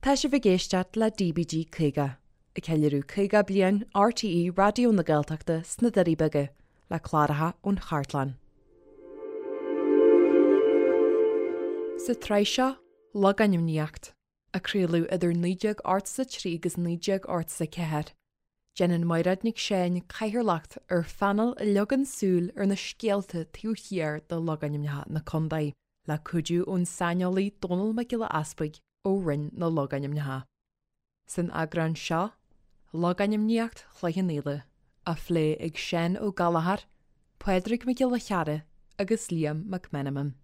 Tá sibh ag éisteacht le DBG 50, ag ceiliúradh 50 bliain RTÉ Raidió na Gaeltachta sna Doirí Beaga, le cláracha ón chartlann. Sa tsraith seo, Logainmníocht, a craoladh idir 1983 agus 1984, déanann Mairéad Nic Seáin cathaoirleacht ar phainéal a leagann súil ar na scéalta taobh thiar de logainmneacha na contae. le cuidiú ón saineolaí Dónall Mac Giolla Easpaig ó Roinn na Logainmneacha. San eagrán seo, Logainmníocht Chloich Cheann Fhaola, á phlé ag Seán Ó Gallchóir, Pádraig Mac Giolla Chearra agus Liam Mac Meanman.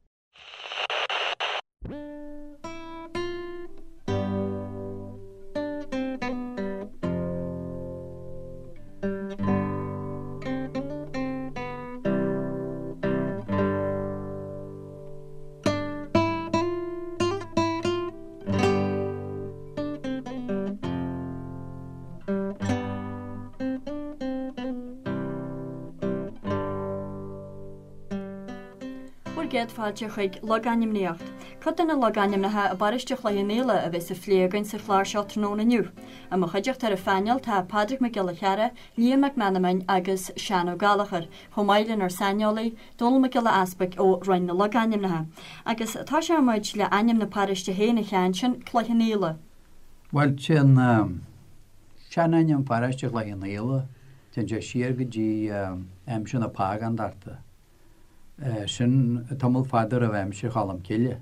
Bhur gcéad fáilte chuig Logainmníocht. Cuid de na logainmneacha i bparóiste Chloich Cheann Fhaola a bheas á phlé againn sa chlár seo tráthnóna inniu. I mo chuideachta ar an phainéal tá Pádraig Mac Giolla Chearra, Liam Mac Meanman agus Seán Ó Gallchóir, chomh maith lenár saineolaí, Dónall Mac Giolla Easpaig ó Roinn na Logainmneacha. Agus tosóidh muid le ainm na paróiste féin a Sheáin, sin Cloich Cheann Fhaola. Bhuel, téann seanainm pharóiste Chloich Cheann Fhaola, téann sé siar go dtí aimsir na págándachta. Sin tamall fada roimh aimsir Cholm Cille,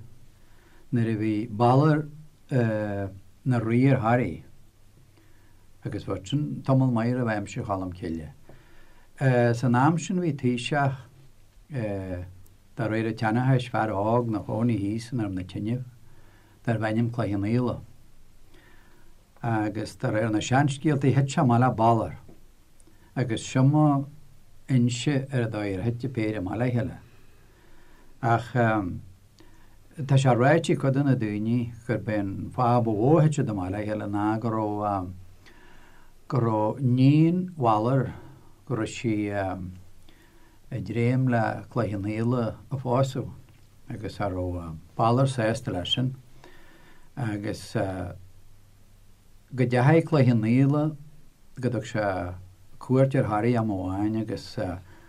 nuair a bhí Balor ina rí ar Thoraigh. Agus bhuel sin tamall maith roimh aimsir Cholm Cille. San am sin bhí taoiseach, de réir an tseanchais, fear óg 'na chónaí thíos i nDroim na Tineadh, darbh ainm Cloich Cheann Fhaola. Agus de réir na seanscéaltaí thit sé amach le Balor. Agus seo mo inse ar an dóigh ar thit an péire amach le chéile. Ach tá sé ráite ag cuid de na daoine gurb é an fáth ba mhó a thit siad amach le chéile ná go raibh go raibh níon Bhalair, go raibh sí ag dréim le Cloich Cheann Fhaola a phósadh agus cha raibh Balor sásta leis sin agus go dteachaigh Cloich Cheann Fhaola, go dtug sé cuairt ar Thoraigh am amháin agus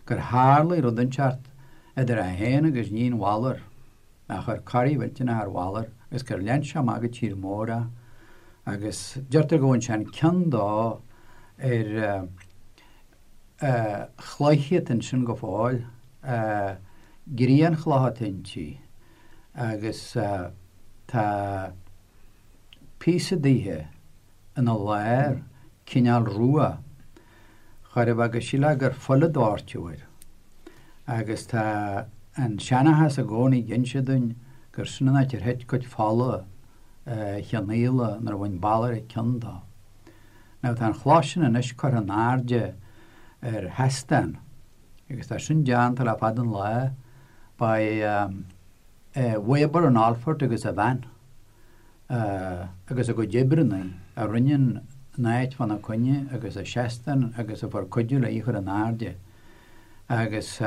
gur tharlaigh rud inteacht idir é féin agus níon Bhalair, a chuir corraí mhillteanach ar Bhalor agus gur lean sé amach go tír mór é agus deirtear go bhfaigheann sé an ceann dó ar chloich atá ansin go fóill, grianchloch atá inti agus tá píosa dithe ina lár, cineál rua, chóir a bheith go sílfeá gur fuil a doirteadh air. Agus tá an seanchas i gcónaí ag inse dúinn gur sin an áit ar thit cuid fola Cheann Fhaola nuair a bhain Balor a ceann dó. Now tá an chloch sin anois curtha in airde ar sheastán agus tá sin déanta le fada an lá by Weber an Alphort agus a bhean. agus a gcuid oibreanna a rinne an áit fána coinne agus an seastán agus a fuair cuidiú le í a chur in airde. Agus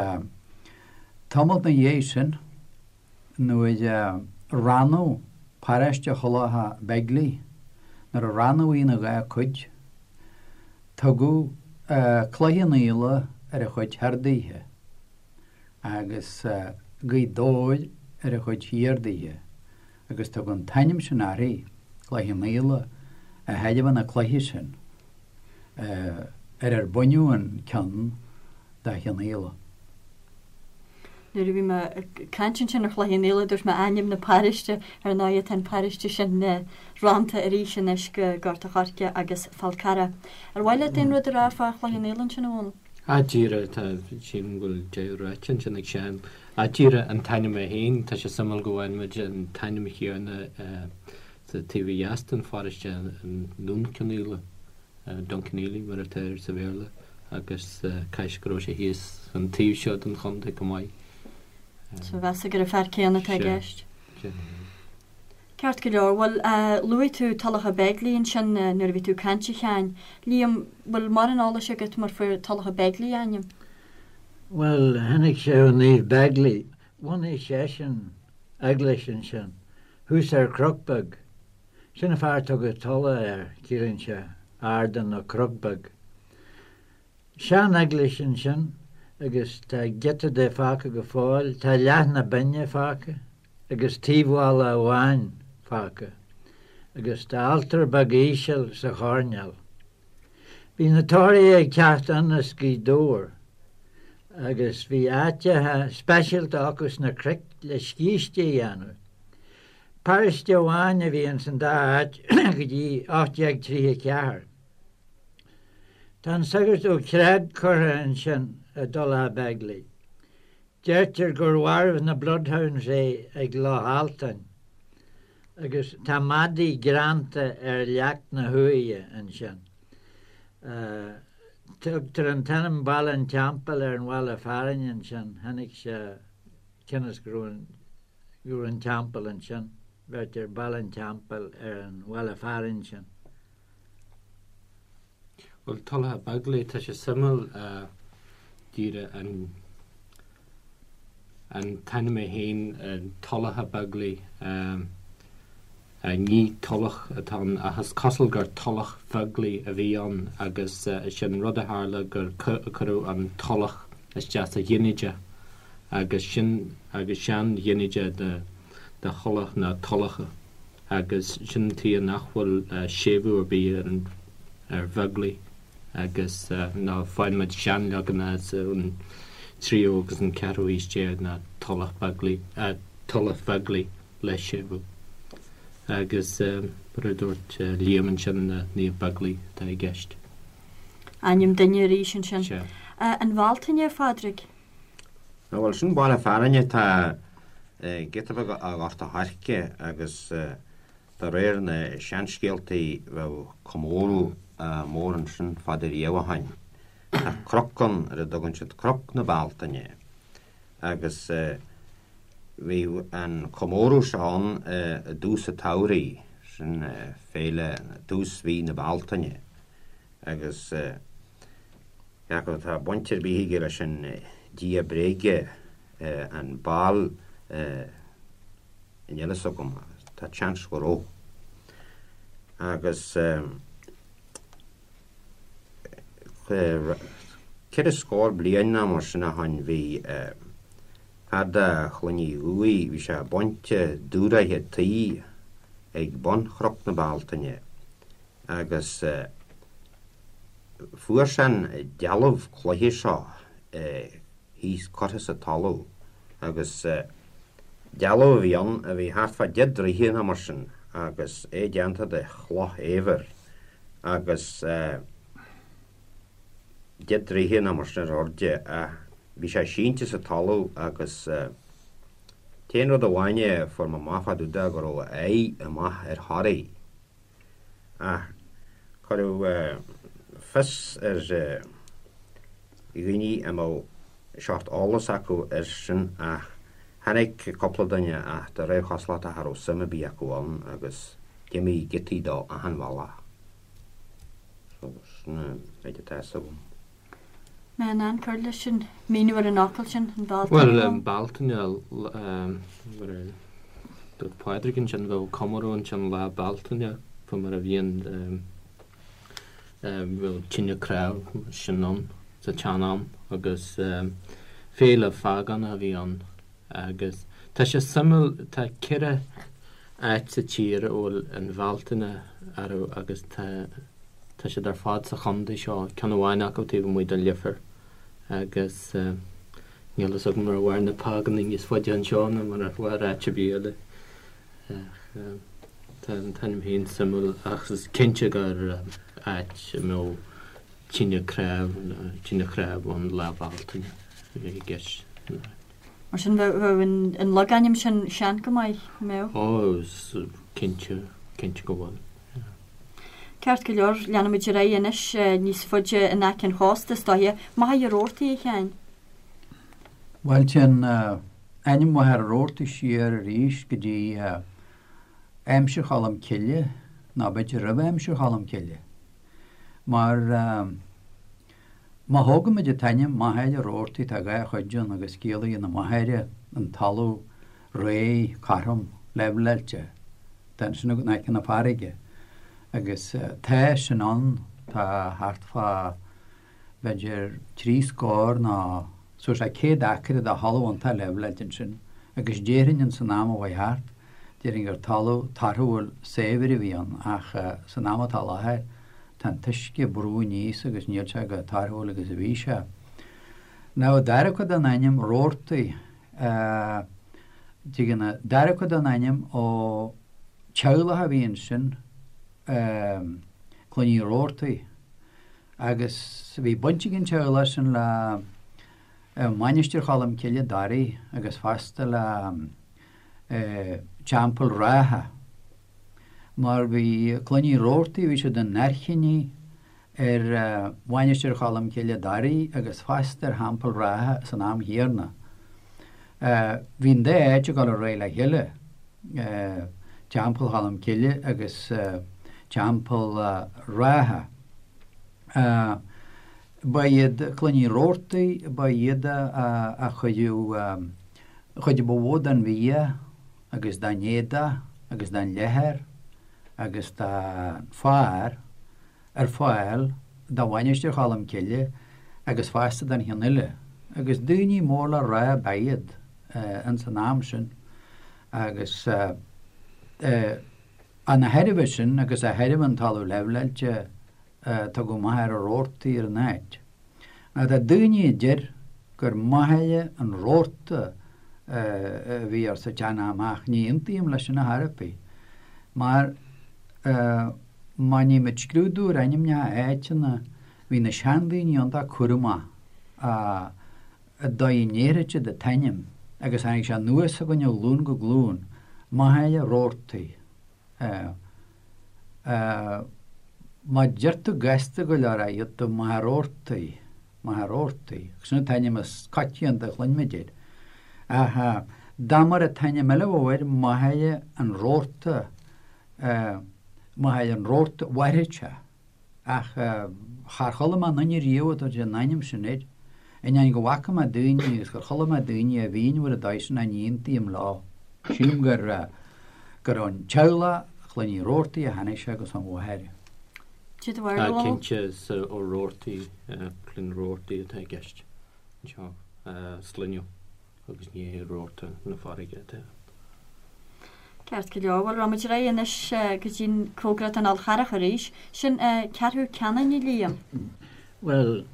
tamalt 'na dhiaidh sin nuair a rannadh paróiste Thulacha Beigile, nuair a rannadh í ina dhá cuid, tugadh Cloich Cheann Fhaola ar an chuid thoir dithe agus Gaoth Dobhair ar an chuid thiar dithe. agus tugadh an t-ainm sin uirthi, Cloich Cheann Fhaola, de thairbhe na cloiche sin ar ar baineadh an ceann de Chionn Fhaola. Nuair a bhí mé ag caint ansin ar Chloich Cheann Fhaola, dúirt mé ainm na paróiste, ar ndóigh tá an paróiste sin rannta arís anois go Gort a' Choirce agus Fál Carrach. Ar mhaith leat aon rud a rá fá Chloich Cheann Fhaola ansin, a Dhónaill? Ah, díreach, tá, sílim go bhfuil deireadh ráite ansin ag Seán. Ah, díreach an t-ainm é féin, tá sé suimiúil go bhfaigheann muid an t-ainm chéanna sa taobh ó dheas den pharóiste, an Dún Cionnaola, Dunkineely mar atá air sa Bhéarla, agus caithfidh go raibh sé thíos an taobh seo den chontae chomh maith. So mheasfá gur an fear céanna atá i gceist. Sea. Ceart go leor. Bhuel, luaigh tú Tulacha Beigile ansin nuair a bhí tú ag caint, a Sheáin. Liam, bhfuil mórán eolais agat mar fuair Tulacha Beigile a ainm? Bhuel, tháinig sé ó Naomh Beigile. Bhunaigh seisean eaglais ansin, thuas ar chnoc beag. Sin an fáth ar tugadh Tulach air, ciallaíonn sé ardán nó cnoc beag. Sean-eaglais ansin agus tá giota de fágtha go fóill, tá leath na binne fágtha agus taobh-bhalla amháin fágtha agus tá altóir beag íseal sa choirnéal. Bhí na Tóraithe ag teacht ann as Gaoth Dobhair agus bhí áiteacha speisialta acu sna cnoic le scíste a dhéanamh. Paróiste amháin a bhí ins an dá áit go dtí 1834. Tá an sagart Ó Creag curtha ansin i dTulach Bheaglaoich. Deirtear gur mharbh na bloodhounds é ag Loch Altáin agus tá madaí greanta ar leac na huaighe ansin. Tugtar an t-ainm Baile an Teampaill ar an bhaile fearainn ansin, tháinig sé cionn is go raibh an teampall ansin, bheirtear Baile an Teampaill ar an bhaile fearainn sin. Bhuel, Tulach Bheaglaoich, tá sé suimiúil díreach an an t-ainm é féin, Tulach Bheaglaoich, ní tulach atá ann ach is cosúil gur Tulach Bheaglaoich a bhí ann agus sin rud a tharla gur cuireadh an tulach isteach sa ghinideach agus sin agus sean-ghinideach de de thulach ná tulacha. agus sin an tuige nach bhfuil séimhiú ar bith ar an ar Bheaglaoich agus ná faigheann muid seanleaganacha ón tríú agus an ceathrú haois déag ná Tulach Beaglaoich, Tulach Bheaglaoich le séimhiú. Agus mar a dúirt Liam ansin Naomh Beaglaoich atá i gceist. Ainm duine arís ansin. Sea. An Bhealtaine, a Phádraig? Bhuel, sin baile fearainn atá giota beag ó Ghort a' Choirce agus de réir na seanscéaltaí bheadh comóradh mór ansin fada riamh ó shoin. Tá cnoc ann ar a dtugann siad Cnoc na Bealtaine agus bhíodh an comóradh seo ann i dtús an tsamhraidh, sin féile tús mhí na Bealtaine agus Cé acu tá baint ar bith aige leis an dia bréige, an Baal, níl a fhios agam, tá seans go raibh. Agus ceithre scór bliain nó mar sin ó shoin bhí fear de Chloinn Uí Dhufaigh, bhí sé ag baint dúshraithe tuí ag bun Chnoc na Bealtaine agus Fuair sé an dealbh cloiche seo thíos curtha sa talamh agus dealbh a bhí ann a bhí thart fá deich dtroithe nó mar sin agus é déanta de chloch éibhir agus deich dtroithe nó mar sin ar airde ach bhí sé sínte sa talamh agus t-aon rud amháin a fuair mé amach fá dtaobh de go raibh a aghaidh amach ar Thoraigh. Ach cuireadh fios ar dhaoine a mbeadh seort eolas acu air sin ach tháinig cúpla duine ach de réir chosúlachta cha raibh suim ar bith acu ann agus d'imigh giotaí dó achan bhealach. So sin an méid atá fhios agam. Mé in ann cur leis an míniú ar an fhocal sin, an Bhealtaine. Bhuel, an Bealtaine, mar a dúirt Pádraig ansin, bheadh comóradh ansin Lá Bealtaine, fá mar a bhíonn, bheadh tine cnámh sin ann sa tsean-am agus féile phágánach a bhí ann agus tá sé suimiúil, tá ceithre áit sa tír a bhfuil an Bhealtaine orthu agus tá Tá siad ar fad sa chontae seo, ceann amháin acu taobh amuigh de Leifear, agus níl fhios agam ar mhair na págánaigh níos faide anseo ná mar a mhair áit ar bith eile. Ach tá an t-ainm féin suimiúil, ach is cinnte gur áit a mbeadh tine cnámh, tine chnámh ann Lá Bealtaine a bhí i gceist. Mar sin bheadh an logainm sin sean go maith, an mbeadh? Ó, cinnte, cinnte go bhfuil. Ceart go leor, leanfaimid ar aghaidh anois níos faide in aice an chósta, is dóiche. Machaire Rabhartaigh, a Sheáin. Bhuel, téann ainm Mhachaire Rabhartaigh siar arís go dtí aimsir Cholm Cille, nó b'fhéidir roimh aimsir Cholm Cille. Mar má thógaimid an t-ainm Machaire Rabhartaigh, tá dhá chuid ann agus ciallaíonn an Machaire an talamh réidh, cothrom, leibhleáilte. Tá ansin in aice na farraige agus tá sin ann, tá thart fá b'fhéidir 3 scór nó suas le 100 acra de thalamh iontach leibhleáilte ansin agus déarfainn ins an am a chuaigh thart, déarfainn gur talamh torthúil saibhir a bhí ann ach san am atá i láthair tá an t-uisce ag brú aníos agus níl sé chomh torthúil agus a bhí sé. Now an dara cuid den ainm, Roarty, Tagann an dara cuid den ainm ó teaghlach a bhí ansin, Clann Uí Robhartaigh, agus bhí baint ag an teaghlach sin le Mainistir Cholm Cille, Doirí, agus fosta le Teampall Rátha, mar bhí Clann Uí Robhartaigh, bhí siad ina n-airchinní ar Mhainistir Cholm Cille, Doirí, agus fosta ar Theampall Rátha san am chéanna. Bhí an dá áit ag dul ar aghaidh le chéile, Teampall Cholm Cille agus Teampall Rátha. Ba iad Clann Uí Robhartaigh, ba iad a chuireadh an chuid ba mhó den bhia agus den éadach agus den leathar agus den féar ar fáil do Mhainistir Cholm Cille agus fosta don cheann eile, agus daoine mór le rá ab ea iad ins an am sin agus ana thairbhe sin agus a thairbhe an talamh leibhleáilte tugadh Machaire Rabhartaigh ar an áit. Now tá daoine a deir gur Machaire an Rabharta a bhí air sa tsean-am ach ní aontaím leis sin ar chor ar bith mar má nímid scrúdú ar ainmneacha áiteanna bhí na seandaoine iontach cúramach an dóigh a ndéarfadh siad an t-ainm agus tháinig sé anuas chugainn ó ghlúin go glúin, Machaire Rabhartaigh. Má deir tú gasta go leor é iad tú Machaire Rabhartaigh, Machaire Rabhartaigh, agus sin an t-ainm is coitianta a chluinimid air. Ach dá mar an t-ainm eile a bheadh air, Machaire an Rabharta, Machaire an Rabharta, mhairfeadh sé. Ach char chuala mé aon duine riamh ag tabhairt an ainm sin air, ainneoin go bhfaca mé daoine agus gur chuala mé daoine a mhíniú ar an dóigh sin ach ní aontaím leo. Sílim gur gur ón teaghlach Chlann Uí Robhartaigh a tháinig sé agus ón Mhachaire. Cad é do bharúil? Tá cinnte is ó Robhartaigh, Clann Robhartaigh atá i gceist anseo, sloinneadh. agus ní hé rabharta na farraige atá ann. Ceart go leor, bhuel rachaimid ar aghaidh anois go dtí an cóngarach don Fhál Charrach arís. Sin Ceathrú Ceanainn, a Liam. Bhuel,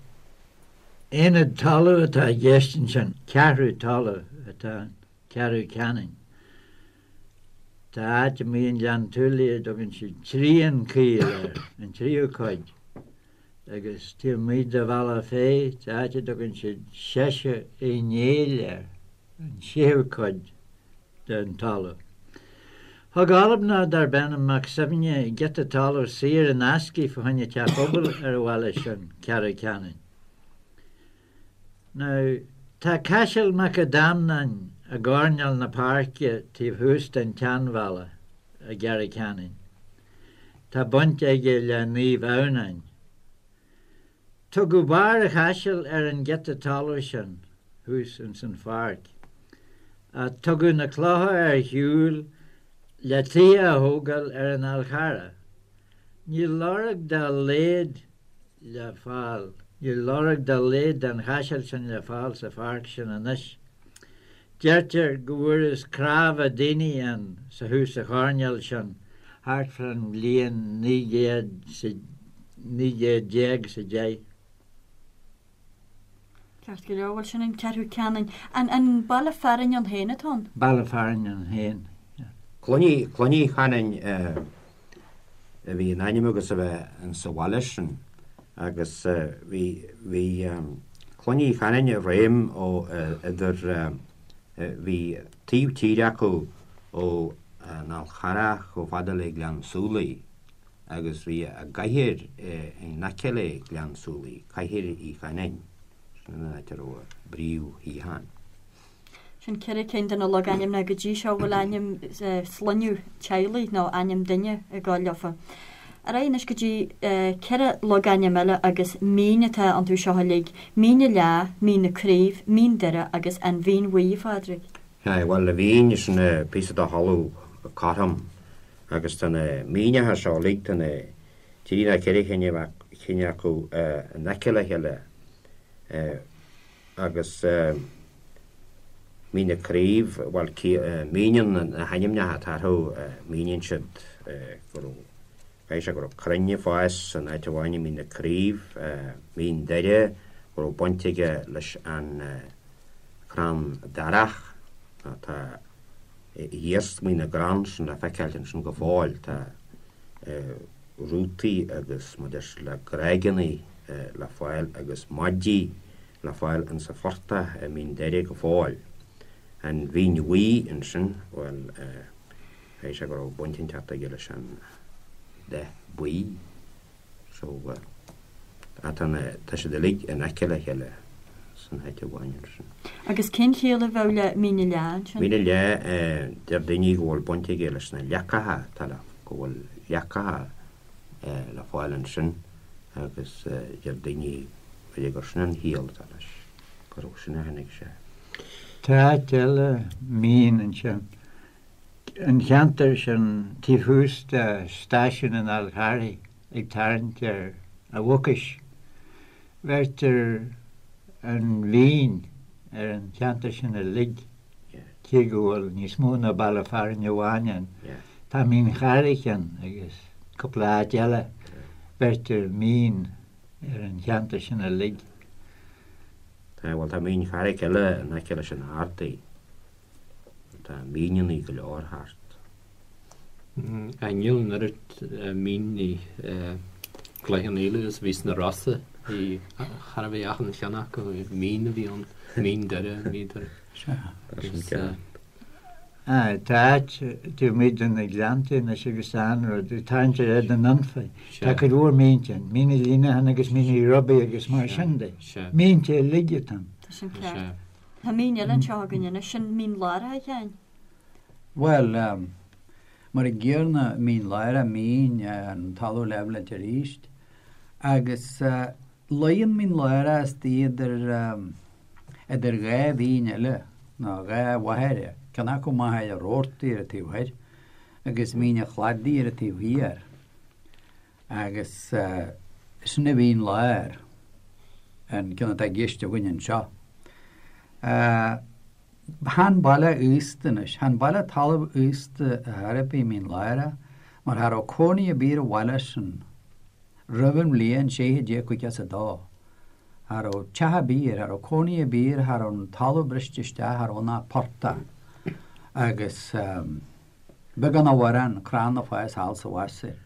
aonad talaimh atá i gceist ansin, ceathrú talaimh atá ann, Ceathrú Ceanainn. Tá áit amuigh i nGleann tSúilí a dtugann siad trian caol air, an tríú cuid. Agus taobh amuigh de Bhealach Féich, tá áit a dtugann siad Seiseadh Uí Néill air, an séú cuid den talamh. Thug Albanach darb ainm Mac Suibhne giota talaimh saor in aisce fá choinne teach pobail ar an bhaile sin, Ceathrú Ceanainn. Now, tá Caiseal Mac Adhamhnáin i gcoirnéal na páirce taobh thuas den tseanbhalla i gCeathrú Ceanainn. Tá baint aige le Naomh Adhamhnáin. Tugadh Barr a' Chaisil ar an giota talamh sin thuas ins an pháirc. Ach tugadh na clocha ar shiúl le tithe a thógáil ar an Fhál Charrach. Níl lorg dá laghad le fáil, níl lorg dá laghad den chaiseal sin le fáil sa pháirc sin anois. Deirtear go bhfuarthas cnámha daoine ann sa thuas sa choirnéal sin thart fán bhliain 1900 1910. Ceart go leor, bhuel sin an Ceathrú Ceanainn. An an baile fearainn ann féin atá ann? Baile fearainn ann féin, yeah. Clann Uí, Clann Uí Chanainn a bhí in ainm agus a bheith in sa bhaile sin agus bhí, bhí Clann Uí Chanainn i réim ó idir, bhí taobh tíre acu ó an Fhál Charrach chomh fada le Gleann Súilí agus bhí a gcathair in aice le Gleann Súilí, Cathair Uí Chanainn, sin an áit a raibh a bpríomhshuíochán. Sin 4 cinn de na logainmneacha go dtí seo a bhfuil ainm sloinneadh teaghlaigh nó ainm duine ag gabháil leofa. Ar aghaidh anois go dtí 4 logainm eile agus mín atá iontu seo uilig, Mín na Leá, Mín na Craobh, Mín Doire agus An Mhín Bhuí, a Phádraig. Sea, bhuel, an Mhín, sin píosa de thalamh cothrom. Agus tá na míneacha seo uilig, tá na trí nó ceithre chinn acu in aice le chéile agus Mín na Craobh, bhuel, míníonn na hainmneacha atá orthu, míníonn siad go raibh, caithfidh sé go raibh crainn ag fás san áit amháin i Mín na Craobh, Mín Doire, go raibh baint aige leis an chrann darach, tá iarsmaí na gcrann sin le feiceáilt ansin go fóill, tá rútaí agus mar deir siad le gráigeannaí le fáil agus maidí le fáil insa phortach i Mín Doire go fóill. An Mhín Bhuí ansin, bhuel, caithfidh sé go raibh baint inteacht aige leis an dath buí. So, tá na, tá siad uilig in aice le chéile san áit amháin ansin. Agus cén chiall a bheadh le Mín na Leá ansin? Mín na Leá, deir daoine go bhfuil baint aige leis na leacacha, tá le, go bhfuil leacacha le fáil ansin agus deir daoine b'fhéidir gur sin an chiall atá leis, gur ó sin a tháinig sé. Tá áit eile mín ansin. An cheantar sin taobh thuas de stáisiún an Fháil Charraigh ag tarraingt ar an Mhucais. Bheirtear an Mhín ar an cheantar sin uilig, cé go bhfuil níos mó ná baile fearainn amháin ann. Tá Mín Charraig ann agus cúpla áit eile. Bheirtear Mín ar an cheantar sin uilig. Tá, bhuel tá Mín Charraig eile in aice leis an Ardaí. Tá míneannaí go leor thart. Níl an oiread mín i gCloich Cheann Fhaola is a bhí sna Rosa. Bhí char a bhí achan cheann acu, mín a bhí ann, Mín Doire, Mín Doire. Sea. Tá áit taobh amuigh de na Gleanntaí anois agus tá an-rud, ag tarraingt ar Fhead an Anfa. Tá cuid mhór mínte ann, Mín Uí Líonacháin agus Mín Uí Robaigh agus mar sin de. Mínte uilig atá ann. Tá sin ceart. Tá mín eile anseo againn anois, sin Mín Lárach, a Sheáin. Bhuel, mar an gcéanna, Mín Lárach, mín, an talamh leibh leat arís. Agus luíonn Mín Lárach istigh idir, idir dhá mhín eile, nó dhá mhachaire, ceann acu Machaire Rabhartaigh ar an taobh thoir, agus Mín an Chladaigh ar an taobh thiar. Agus sin a Mhín Láir, an ceann atá i gceist againn anseo. Chan baile aosta anois, chan baile talamh aosta ar chor ar bith Mín Lárach, mar cha raibh cónaí ar bith ar an bhaile sin roimh an bhliain 1652. Cha raibh teach ar bith air, cha raibh cónaí ar bith air, cha raibh an talamh briste isteach, cha raibh ann ach portach. Agus. Beagán nó mórán crann ag fás thall 's abhus air.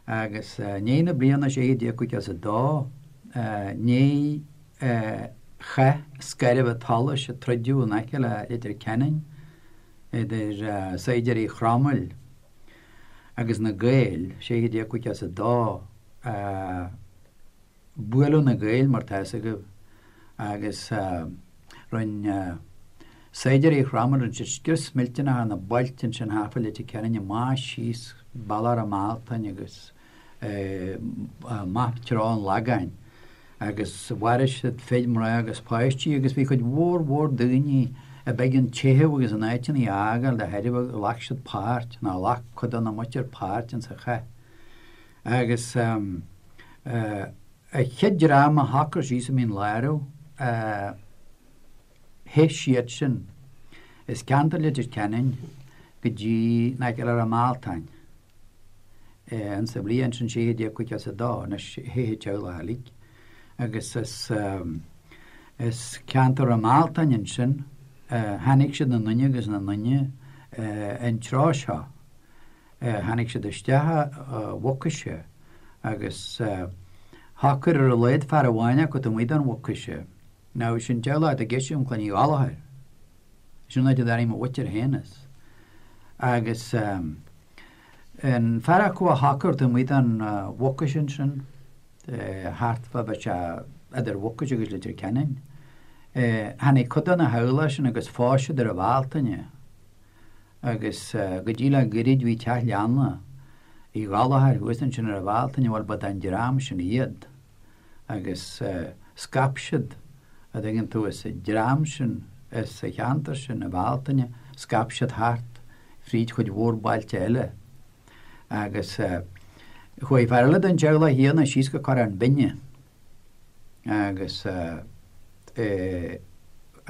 Agus i ndiaidh na bliana 1652, i ndiaidh chath Scairbh tSolais a troideadh in aice le Leitir Ceanainn idir saighdiúirí Chromaill agus na Gaeil, 1652, Buaileadh na Gaeil, mar tá fhios agaibh, agus rinne saighdiúirí Chromaill, rinne siad scrios millteanach ar na bailte ansin thart fá Leitir Ceanainn amach síos bealach Ráth Mealtain agus amach treo an Lagáin agus mharaigh siad fir, mná agus páistí agus bhí cuid mhór mhór daoine ab éigean teitheadh agus a n-áiteanna a fhágáil de thairbhe ghlac siad páirt, nó ghlac cuid de na muintir páirt insa chath. Agus an chéad dream a shocraigh síos i Mín Lárach, theith siad sin as ceantar Leitir Ceanainn go dtí in aice le Ráth Mealtain insa bhliain sin 1652, anois theith an teaghlach uilig agus as ceantar Ráth Mealtain ansin tháinig siad ina nduine agus ina nduine an treo seo. Tháinig siad isteach a Mhucaise agus shocair ar a laghad fear amháin acu taobh amuigh den Mhucaise. Now sin teaghlach atá i gceist agam Clann Uí Ghallchóir. Sin an áit a dtarraing mo mhuintir féin as. Agus an fear acu a shocair taobh amuigh den Mhucais ansin, thart fá bheadh sé idir Mhucais agus Leitir Ceanainn, tháinig cuid de na theaghlach sin agus phós siad ar an Bhealtaine. Agus go dtí le goirid bhí teach leanna Uí Ghallchóir thuas ansin ar an Bhealtaine, bhuel ba den dream sin iad. Agus scaip siad, a dtuigeann tú, as an dream sin, as an cheantar sin, an Bhealtaine, scaip siad thart fríd chuid mhór bailte eile. Agus chuaigh fear eile den teaghlach chéanna síos go Corrán Binne agus cha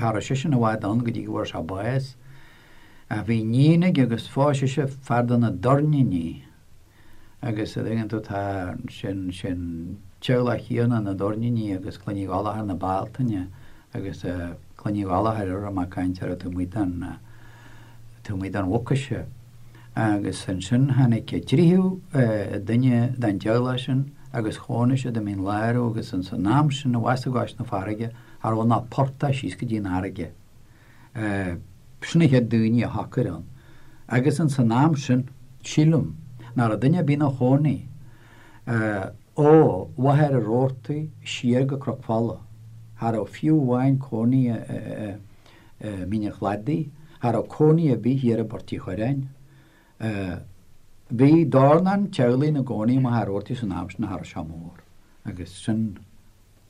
raibh seisean i bhfad ann go dtí go bhfuair sé bás. Ach bhí iníon aige agus phós sise fear de na Doirníní agus a dtuigeann tú tá sin, sin teaghlach chéanna na Doirníní agus Clann Uí Ghallchóir na Bealtaine agus Clann Uí Ghallchóir a raibh mé ag caint orthu taobh amuigh den, taobh amuigh den Mhucais. Agus ansin tháinig tríú duine den teaghlach sin agus chónaigh siad i Mín Lárach agus ins an am sin abhus i gcois na farraige cha raibh ann ach portach síos go dtí an fharraige. Sin na chéad daoine a shocair ann. Agus ins an am sin, sílim, nach raibh duine ar bith ina chónaí ó Mhachaire Rabhartaigh siar go Cnoc Fola. Cha raibh fiú amháin cónaí i Mín an Chladaigh, cha raibh cónaí ar bith thiar i bPort Uí Churráin. Bhí dornán teaghlaigh ina gcónaí i Machaire Rabhartaigh san am sin, cha raibh sé mór. Agus sin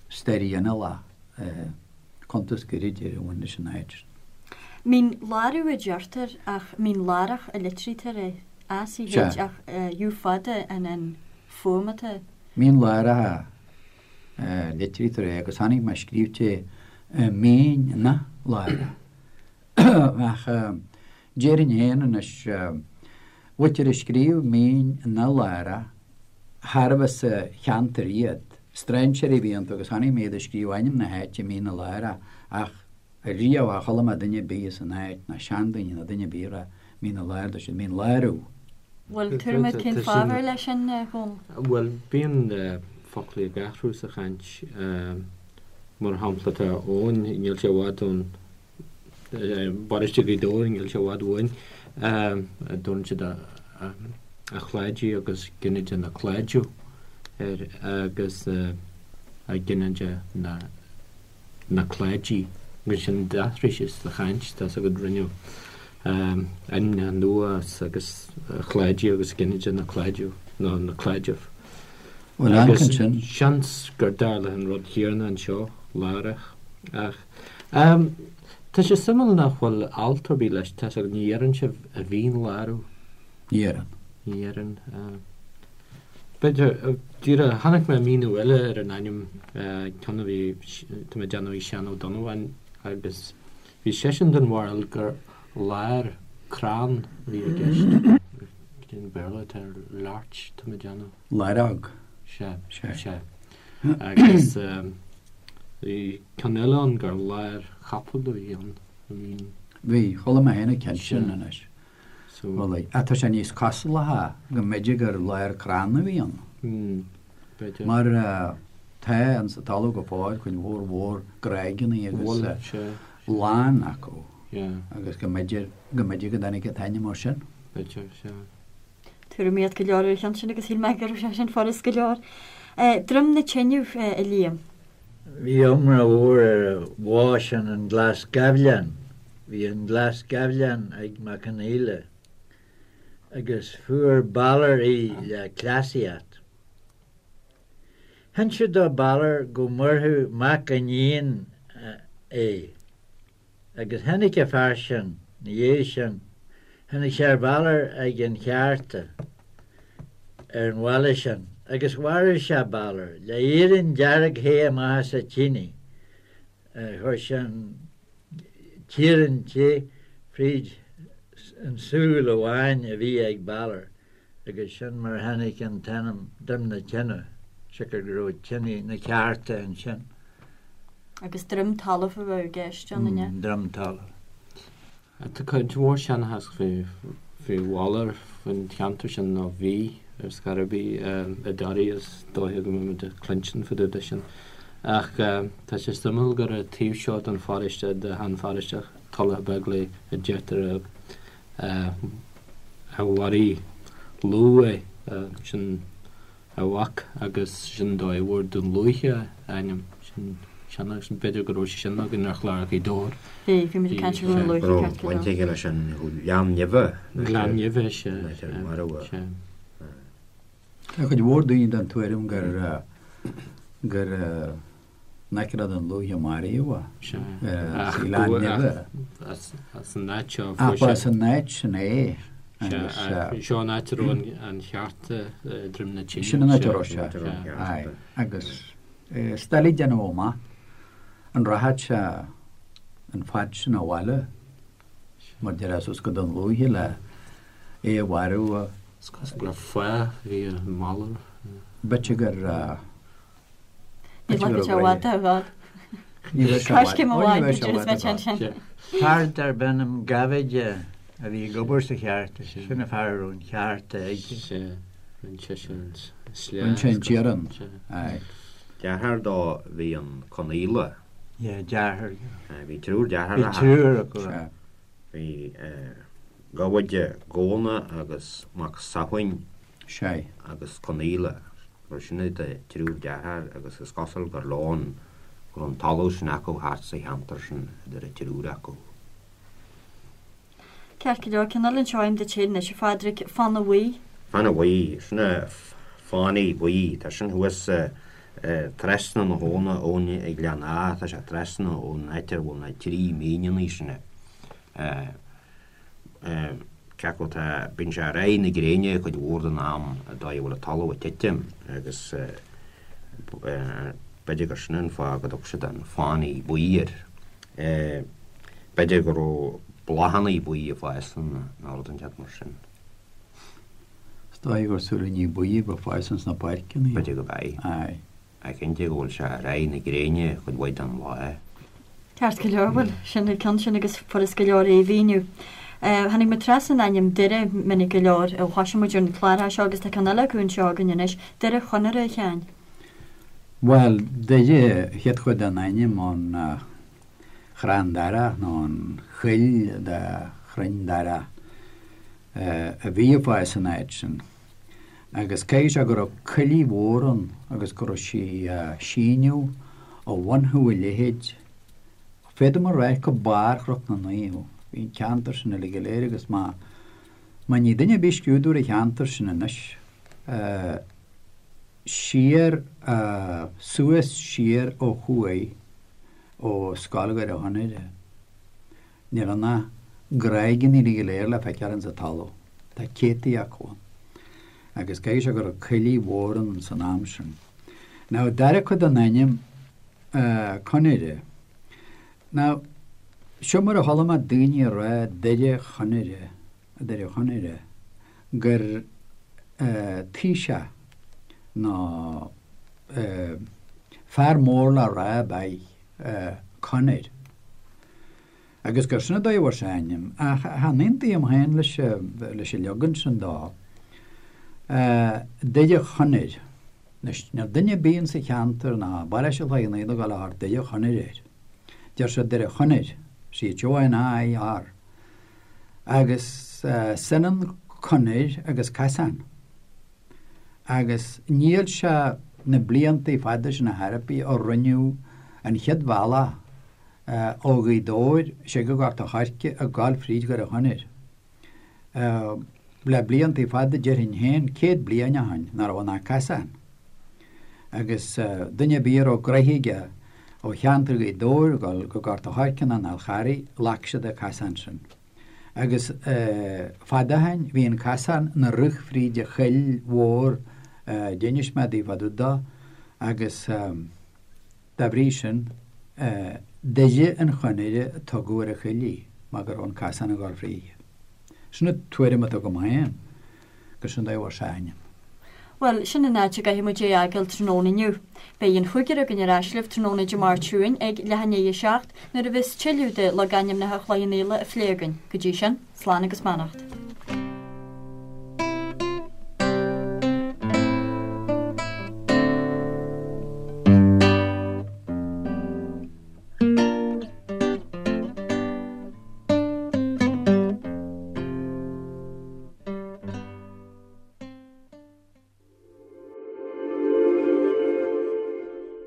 stair ghinealach, cuntas gairid ar a bhain leis an áit sin. Mín Lárach a deirtear ach Mín Lárach a litrítear é, ACH ach U fada an an fuaim atá. Mín Lárach a litrítear é agus chonaic mé scríte Mín na Lárach. Ach déarfainn féin anois, mhuintir a scríobh Mín na Lárach, charbh as an cheantar iad, strainséirí a bhí iontu agus chonaic mé iad ag scríobh ainm na háite Mín na Lárach ach riamh char chuala mé duine ar bith as an áit, ná seandaoine ná duine ar bith ag rá Mín na Lárach, dúirt siad Mín Lárú. Bhfuil tuairim agat cén fáth ar leis sin, a Dhónaill? Bhuel, bíonn foclaí ag athrú sa chaint. Mar shampla, tá Eoin, níl sé i bhfad ón bparóiste Ghaoth Dobhair, níl sé i bhfad uainn, a dtabharann siad a Chláidí agus ginideach na Cláidiú air agus a ginideach na na Cláidí agus sin d'athraigh sé sa chaint, tá's agat, rinneadh ainmneacha nua as agus Chláidí agus ginideach na Cláidiú nó na Cláideamh. Bhuel, Agus seans gur dtarla an rud céanna anseo, Lárach, ach tá sé suimiúil nach bhfuil alt ar bith leis, tá's agat, ní dheireann sibh a Mhín Lárach. Ní dheireann. Ní dheireann. B'fhéidir, díreach, chonaic mé míniú eile ar an ainm, ceann a bhí, tá mé ag déanamh ag Seán Ó Donnabháin agus bhí seisean den bharúil gur lár crann a bhí i gceist. Cén Béarla atá ar larch, tá mé ag déanamh? Laireog. Sea, sea. Agus bhí ceann eile ann gur láir chapaill a bhí ann. Bhí, chuala mé féin an ceann sin anois. Bhuel, ach tá sé níos cosúlacha go mb'fhéidir gur lár crann a bhí ann. B'fhéidir. Mar tá insa talamh go fóill cuid mhór mhór gráigeanna agus lán acu agus go mb'fhéidir go mb'fhéidir go dtáinig an t-ainm ó sin. B'fhéidir, sea. Tuairimíocht go leor ar an cheann sin agus shíl mé go raibh sé sin furast go leor. Droim na Teineadh, a Liam. Bhí iomrá mhór ar an bhá sin an Glas Gaibhleán. Bhí an Glas Gaibhleán ag Mac Conaola agus fuair Balor í le cleasaíocht. Hinsint do Balor go maorfadh mac a iníon é. Agus tháinig an fear sin, 'na dhiaidh sin, tháinig sé ar Bhalor ag an cheárta ar an bhaile sin, agus mharaigh sé Balor le iarann dearg the amach as a tine. Chuir sé an t-iarann te fríd an súil amháin a bhí ag Balor. Agus sin mar a tháinig an t-ainm Droim na Tine, siocair go raibh tine na ceárta ansin. Agus droim talaimh a bheadh i gceist ann, an ea? Droim talaimh. Tá cuid mhór seanchas faoi Bhalor, faoin cheantar sin, nó bhí ar scor ar bith i dToraí, is dóiche go mbeimid ag cluinstin fá dtaobh de sin. Ach tá sé suimiúil gur an taobh seo den pharóiste, de shean-pharóiste Tulach Beaglaoich, a deirtear a mharaigh Lugh é, sin a mhac agus sin an dóigh a bhfuair Dún Lúiche a ainm. Sin seanchas, b'fhéidir go raibh sé sin againn ar chlár Ghaoth Dobhair. Bhí, bhí muid ag caint ar Dhún Lúiche ceart go leor. Baint aige leis an Ghleann Nimhe. Gleann Nimhe, sea, sea. Tá cuid mhór daoine den tuairim gur gur in aice le Dún Lúiche a maraíodh é. Sea. Ach Gleann Nimhe. As an áit seo a fuair sé. Ach ba as an áit sin é. Agus. Seo an áit a raibh an cheárta i Droim na Tine. Sin an áit a raibh sé. Aye. Agus is doiligh déanamh amach an rachadh sé an fad sin abhaile mar déarfá suas go Dún Lúiche le é a mharú. Is cosúil go raibh fáth a bhí i mBalor. B'fhéidir gur. Ní bhfaca sé i bhfad i bhfad. Ní bheidh sé i bhfad. Coiscéim amháin b'fhéidir is mbeidh sé ansin. Fear darb ainm Gabhaide a bhí ag obair sa cheárta, sin an fear a raibh an cheárta aige. Sea, rinne seisean an sléa. Rinne sé an t-iarann, aye. Deartháir dó bhí an Conaola. Yeah, deartháir. Bhí triúr deartháireacha. Bhí triúr acu. Sea. Bhí Gabhaide, Góna agus Mac Samhain. Sea. agus Conaola, mar sin iad an triúr deartháir agus is cosúil gur leo an, go raibh an talamh sin acu thart sa cheantar sin idir an triúr acu. Ceart go leor, ceann eile anseo agam duit féin anois, a Phádraig, Fána Bhuí. Fána Bhuí, sin é Fánaí Buí, tá sin thuas trasna na habhna ón ag Gleann Átha, tá sé trasna ón áit ar bhfuil na trí míneanna sin. Cé acu tá, bíonn sé ar aghaidh na gréine cuid mhór den am, an dóigh a bhfuil an talamh ag titim agus b'fhéidir gur sin an fáth go dtug siad an Fánaí Buí air. B'fhéidir go raibh bláthanna buí ag fás ann nó rud inteacht mar sin. Is dóigh gur súilíní buí a bheadh ag fás ins na páirceanna. B'fhéidir go b'é. Aye. Ach cinnte go bhfuil sé ar aghaidh na gréine cuid mhaith den lá. Ceart go leor, bhuel, sin an ceann sin agus furas go leor é a mhíniú. Tháinig muid trasna an ainm Doire minic go leor ó thosaigh muid ar na cláracha seo agus tá ceann eile acu anseo againn anois, Doire Chonaire, a Sheáin. Bhuel, Doire, chéad chuid den ainm ón chrann darach nó an choill de chrainn darach a bhí ag fás san áit sin. Agus caithfidh sé go raibh coillidh mhór ann agus go raibh sí a síneadh ó bhun Thú a Leithéid, féadaim a rá go barr Chnoc na Naomh. Bhí an ceantar sin uilig go léir agus má má ní duine ar bith scrúdú ar an cheantar sin anois, siar, suas siar ó thuaidh ó Scoil Dhoire Chonaire. Níl ann ach gráigeanna uilig go léir le feiceáil ins an talamh. Tá céadtaí acu ann. Agus caithfidh sé go raibh coillidh mhór ann san am sin. Now, dara cuid den ainm, Conaire. Now, seo mar a chuala mé daoine ag rá Doire Chonaire, Doire Chonaire, gur taoiseach nó fear mór le rá ab ea Conair. Agus gur sin an dóigh a bhfuair sé a ainm. Ach chan aontaím féin leis leis an leagan sin dó. Doire Chonair. Anois, níl duine ar bith insa cheantar ná i bparóiste Chloich Cheann Fhaola ag dul a thabhairt Doire Chonair air. Deir siad Doire Chonair, C-H-O-N-A-I-R. Agus is ionann conair agus casán. Agus níl sé na blianta fada sin ar chor ar bith ó rinneadh an chéad bhealach ó Ghaoth Dobhair siar go Gort a' Choirce ag gabháil fríd Dhoire Chonair. Le blianta fada déarfainn féin, 100 bliain ó shoin, nach raibh ann ach casán. Agus duine ar bith a raibh gnoithe aige ó cheantar Ghaoth Dobhair ag dul go Gort a' Choirce nó an Fhál Charraigh, ghlac siad an casán sin. Agus fada ó shoin bhí an casán ina rith fríd an choill mhór a d'inis mé daoibh fá dtaobh dó agus dá bhrí sin Doire an Chonaire a tugadh ar an choill í mar go raibh an casán ag dul fríthi. Sin an tuairim atá agam féin gur sin an dóigh a bhfuair sé a ainm. Bhuel, sin an áit a gcaithfidh muid é a fhágáil tráthnóna inniu. Beidh an chúigear againn ar ais libh tráthnóna Dé Máirt seo chugainn ag leath i ndiaidh a 7 nuair a bheas tuilleadh de logainmneacha Chloich Cheann Fhaola á phlé againn. Go dtí sin, slán agus beannacht.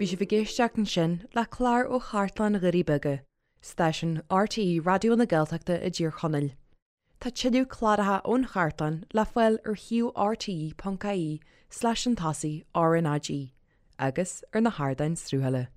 Bhí sibh ag éisteacht ansin le clár ó Chartlann Dhoirí Beaga, stáisiún RTÉ Raidió na Gaeltachta i dTír Chonaill. Tá tuilleadh cláracha ón chartlann le fáil ar shuíomh rte.ie slash an tosaigh RnaG agus ar na hardáin sruthála.